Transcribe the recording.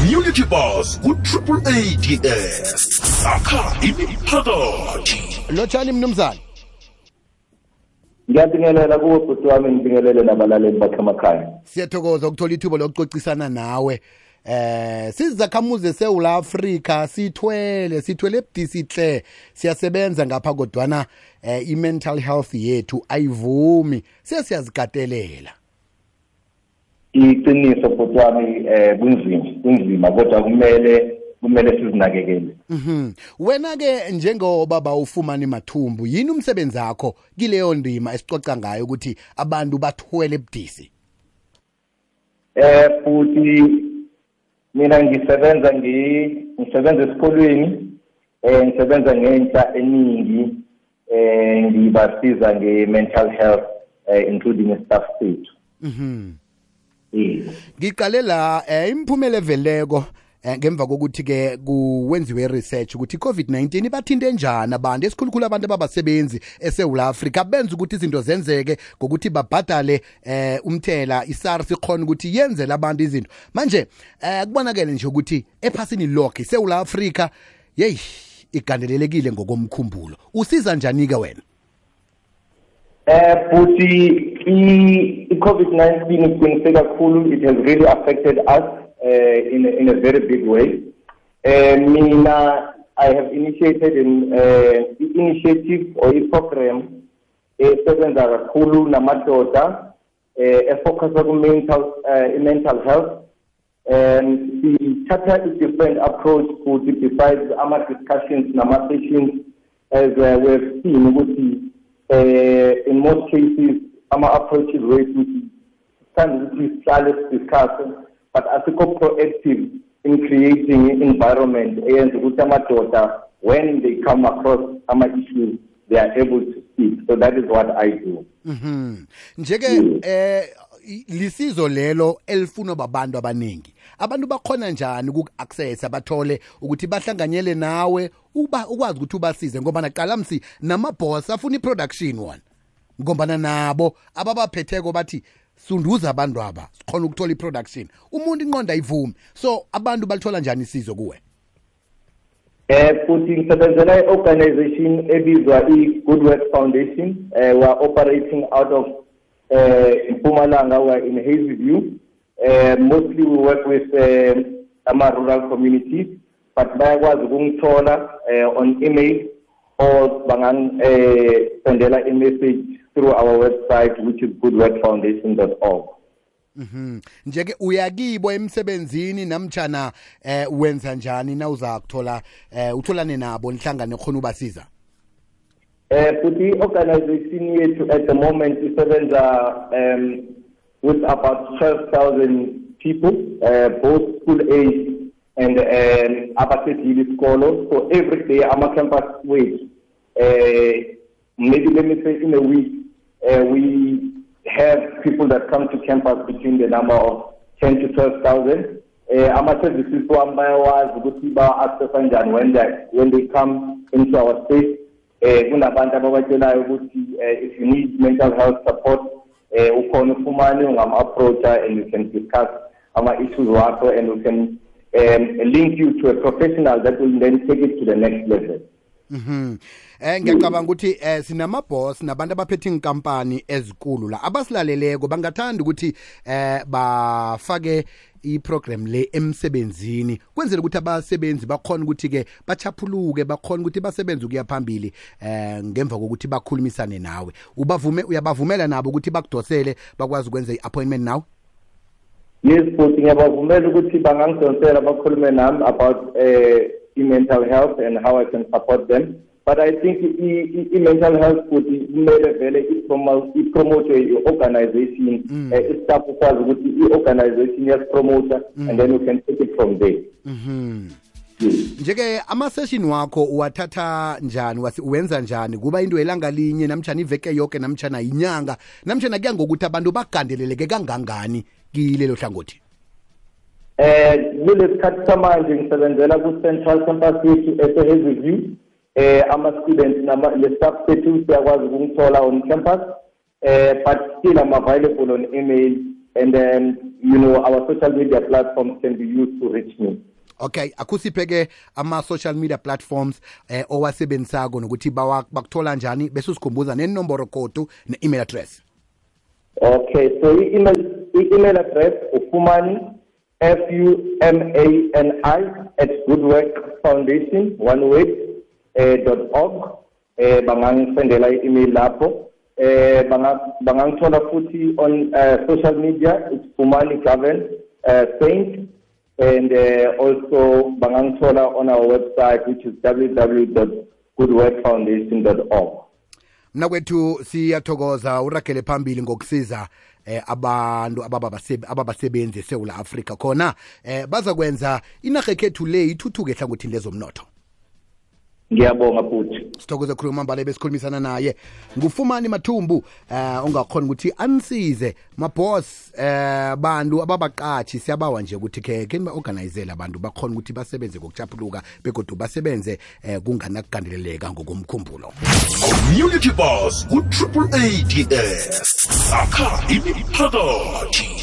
Community Bus ku AAADS. Sakha imiphakathi. Lotshani mnumzana. Ngiyabingelela kuwe bhuti wami, ngibingelele nabalaleli bakhe emakhaya. Siyathokoza ukuthola ithuba lokucocisana nawe. Sizakhamuze seSouth Africa sithwele ebudisihle siyasebenza ngapha kodwana i-mental health yethu ayivumi siyazikatelela. Iqiniso bhuti wami, kunzima kodwa kumele sizinakekele. Wena ke njengobaba ufumana imathumbu, yini umsebenzi wakho kileyo ndima esicoca ngayo ukuthi abantu bathwele ebudisi? Futhi mina ngisebenza esikolweni, ngisebenza ngentsha eningi, ngibasiza nge-mental health, including staff sethu. Ngiqale la imiphumela eveleko ngemva kokuthi ke kuwenziwe research ukuthi i-COVID-19 ibathinte njani abantu esikhulukhulu abantu ababasebenzi eSouth Africa benza ukuthi izinto zenzeke ngokuthi babhadale umthela iSARS ikhona ukuthi yenzele abantu izinto. Manje kubonakala nje ukuthi ephasini lonke eSouth Africa igandelelekile ngokomkhumbulo. Usiza njani ke wena? Futhi i-COVID-19 iqiniseke kakhulu, it has really affected us in a very big way. Mina, I have initiated an initiative or a program esebenza kakhulu namadoda efocus on mental health. Sithatha a different approach futhi besides our discussions nama sessions, as we have seen ukuthi in most cases our approach is way to stand with discuss, but asikho proactive in creating an environment and when they come across some issues they are able to speak. So that is what I do. Njeke lisizo lelo elifuna babantu abaningi. Abantu bakhona njani uku-access abathole ukuthi bahlanganyele nawe ukwazi ukuthi ubasize ngoba naqala msi namaboss afuna iproduction one. Ngoba nabo ababaphetheko bathi sunduza abantu aba sikhona ukuthola iproduction. Umuntu inqonda ayivumi. So abantu balithola njani isizo kuwe? Futhi ngisebenzela i-organization ebizwa i-Good Work Foundation. We are operating out of Mpumalanga. We are in Hazyview. Mostly we work with rural communities, but bayakwazi ukungithola on email or sendela a message through our website, which is goodworkfoundation.org. Njeke uyakibo emsebenzini namtjana wenza njani na uza kuthola utholane nabo nihlangane khona ubasiza? Futhi organization yethu at the moment isebenza with about 12,000 people, both school age and abasedile isikolo. So every day our campus week, maybe let me say in a week, we have people that come to campus between the number of 10 to 12,000. Our services when they come into our space, if you need mental health support, approach and you can discuss our issues and we can link you to a professional that will then take it to the next level. Ngiyacabanga ukuthi sinamaboss nabantu abaphethe inkampani ezikulu la abasilaleleko bangathanda ukuthi bafake iprogram le emsebenzini kwenzela ukuthi abasebenzi bakhona ukuthi ke bachaphuluke bakhona ukuthi basebenze ukuya phambili ngemva kokuthi bakhulumisane nawe. Uyabavumela nabo ukuthi bakudosele bakwazi ukwenza iappointment nawe? Yes, futhi ngiyabavumela ukuthi bangangidonsela bakhulume nami about mental health and how I can support them. But I think mental health would made vele promote organization, staff ukwazi ukuthi i-organization yasipromoter and then we can take it from there. Njeke ama-session wakho uwathatha njani, uwenza njani? Kuba into elanga linye namtjana iveke yonke namtjana inyanga namtjana kuya ngokuthi abantu bagandeleleke kangangani kilelo hlangothi? Kulesikhathi samanje ngisebenzela ku-Central Campus yethu eseHazyview. Ama-students le-staff sethu siyakwazi ukungithola on campus, but still I'm available on email and then, our social media platforms can be used to reach me. Okay, akusiphe-ke ama-social media platforms owasebenzisako nokuthi bakuthola njani bese usikhumbuza nenomboro kodu ne-email address. Okay, so email address ufumani FUMANI @goodworkfoundation.org. Bangangisendela i-email lapho. Bangangithola futhi on social media, it's Fumani Gaven Saint, and also bangangithola on our website, which is www.goodworkfoundation.org. Mna kwethu siyathokoza uragele phambili ngokusiza abantu ababasebenzi eSouth Africa khona baza kwenza inarha ekhethu le ithuthuke ehlangothini lezomnotho. Ngiyabonga futhi. Sithokoze khuluma mbale besikhulumisana naye ngufumani Mathumbu ongakhona ukuthi anisize maboss bantu ababaqatshi siyabawa nje ukuthi ke ba-organizela abantu bakhona ukuthi basebenze ngokuchapuluka begodu basebenze kunganakugandeleleka ngokomkhumbulo. Community Boss ku-AADS akha imiphakathi.